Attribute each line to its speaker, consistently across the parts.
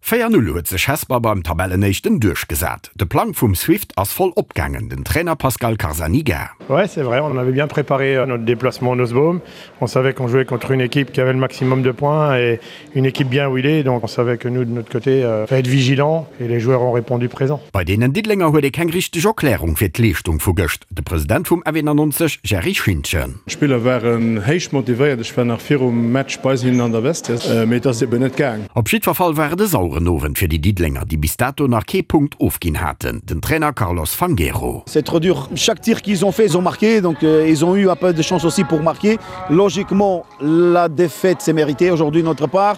Speaker 1: 4, 0 huet sech Hesper beim Tabellenéischten duerchgesat. De Plang vum Swift ass voll opgaangen, den Trainer Pascal Carzaniga.
Speaker 2: Ouais, c'est vrai, on avait bien préparé euh, notre déplacement en Osbaum. On savait qu'on jouait contre une équipe qui avait le maximum de points et une équipe bien huilée, donc on savait que nous de notre côté euh, fallait être vigilant et les joueurs ont répondu présent.
Speaker 1: Bei deenen Diddelenger huet ee keng richteg Erklärung fir d'Leeschtung vu gëscht, de President vum F91 Jerry Schintgen.
Speaker 2: D'Spiller waren héich motivéiert, ech war nach virum Match bei hinnen an der Vestiaire, mee et ass eben net gaang.
Speaker 1: Op jiddwer Fall war et e saueren Owend fir déi Diddelenger, déi bis dato nach kee Punkt ofginn haten, den Trainer Carlos Fangueiro.
Speaker 3: C'est trop dur, chaque tir qu'ils ont fait, ils ont marqué, donc ils ont eu un peu de chance aussi pour marquer. Logiquement, la défaite c'est mérité aujourd'hui de notre part.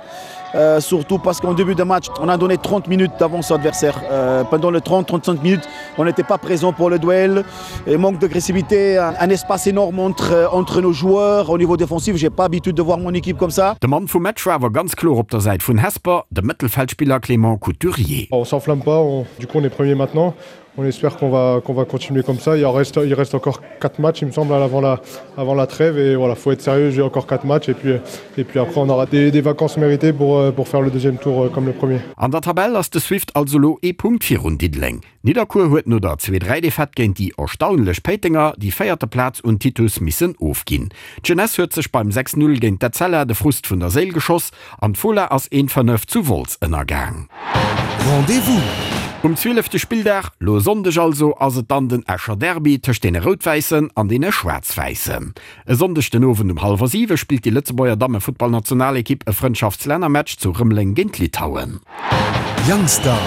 Speaker 3: Euh, surtout parce qu'en début de match, on a donné 30 minutes d'avance à l'adversaire. Euh, pendant les 30-35 minutes, on n'était pas présent pour le duel. Et manque d'agressivité, un, un espace énorme entre, euh, entre nos joueurs. Au niveau défensif, j'ai pas habitude de voir mon équipe comme ça.
Speaker 1: De Mann vum Match war awer ganz kloer op der Säit vun Hesper, de Mëttelfeldspiller Clément Couturier.
Speaker 2: On s'enflamme pas, on, du coup on est premier maintenant. On espère qu'on va, qu'on va continuer comme ça. Il reste, il reste encore quatre matchs, il me semble, avant la, avant la trêve. Et voilà, faut être sérieux, j'ai encore quatre matchs. Et puis, et puis après, on aura des, des vacances méritées pour, euh, pour faire le deuxième tour euh, comme le premier.
Speaker 1: An der Tabell ass de Swift also lo ee Punkt virun Diddeleng. Nidderkuer huet no der Zwee-Dräi-Defaite géint déi erstaunlech Péitenger déi véierte Plaz un Titus missen ofginn. D'Jeunesse huet sech beim 6, 0 géint d'Etzella de Frust vun der Séil geschoss An d'Fola ass een 5 zu Wolz ënnergaang.
Speaker 4: Rendez-vous!
Speaker 1: Um zwielefte Spilldag, lo e Sonndeg also, ass et dann den Escher Derby tëscht deene Rout-Wäissen an deene Schwaarz-Wäissen. E Sonndeg den Owend um hallwer 7 spillt déi Lëtzebuerger Dammefuttballnationalekipp e Frëndschaftslännermatch zu Rëmeleng géint Litauen.
Speaker 4: Youngster.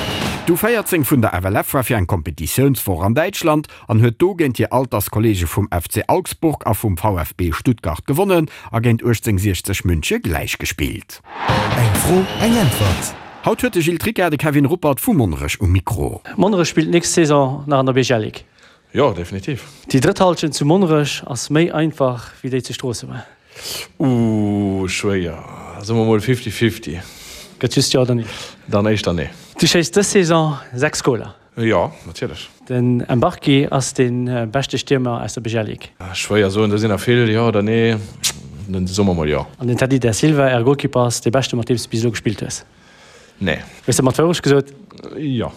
Speaker 1: D'U14 vun der FLF war fir eng Kompetitiounswoch an Däitschland an huet do géint hir Alterskolleege vum FC Augsburg a vum VfB Stuttgart gewonnen a géint 1860 Münche gläichgespillt.
Speaker 4: Eng Fro, eng Äntwert.
Speaker 1: Haut huet de Gilles Tricca de Kevin Ruppert vu Monnerech um Mikro.
Speaker 5: Monnerech spillt nächst Saison nach an der BGL-Ligue.
Speaker 6: Jo, definitiv.
Speaker 5: Déi drëtt Halschent zu Monnerech ass méi einfach wéi déi zu Stroossebur.
Speaker 6: Ooh, schwéier. Soe mer mol fifty-fifty.
Speaker 5: Gëtt just Jo oder Nee.
Speaker 6: Dann éischter Nee.
Speaker 5: Du schéiss dës Saison 6 Goler.
Speaker 6: Jo, natierlech.
Speaker 5: Den Mbarki ass dee beschte Stiermer aus der BGL Ligue.
Speaker 6: Schwéier soen, do sinn der vill. Jo oder nee? Dann soe mer mol jo.
Speaker 5: An den Teddy Da Silva, äre Golkipper, ass dee beschte mat deem s de bis elo gespillt hues?
Speaker 6: Nee.
Speaker 5: Hues de mat Wourecht gesot?
Speaker 6: Jo.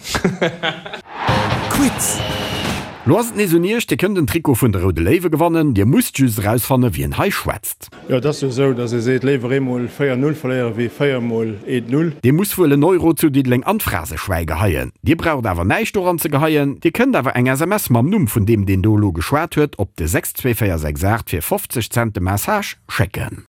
Speaker 4: Quiz!
Speaker 1: Lo ass et nees un iech, Dir kënnt en Trikot vun de Roude Léiwe gewannen. Dir musst just erausfanne wien hei schwätzt.
Speaker 2: Jo, et ass jo esou, datt ee seet, léiwer eemol 4, 0 verléiere wéi 4 mol 1, 0.
Speaker 1: Dee muss wuel en Euro zu Diddeleng an d'Phraseschwäi geheien. Dir braucht awer näischt doran ze geheien. Dir kënnt awer eng SMS mam Numm vun deem, deen do elo geschwat huet, op de 62468 fir 50 Cent de Message schécken.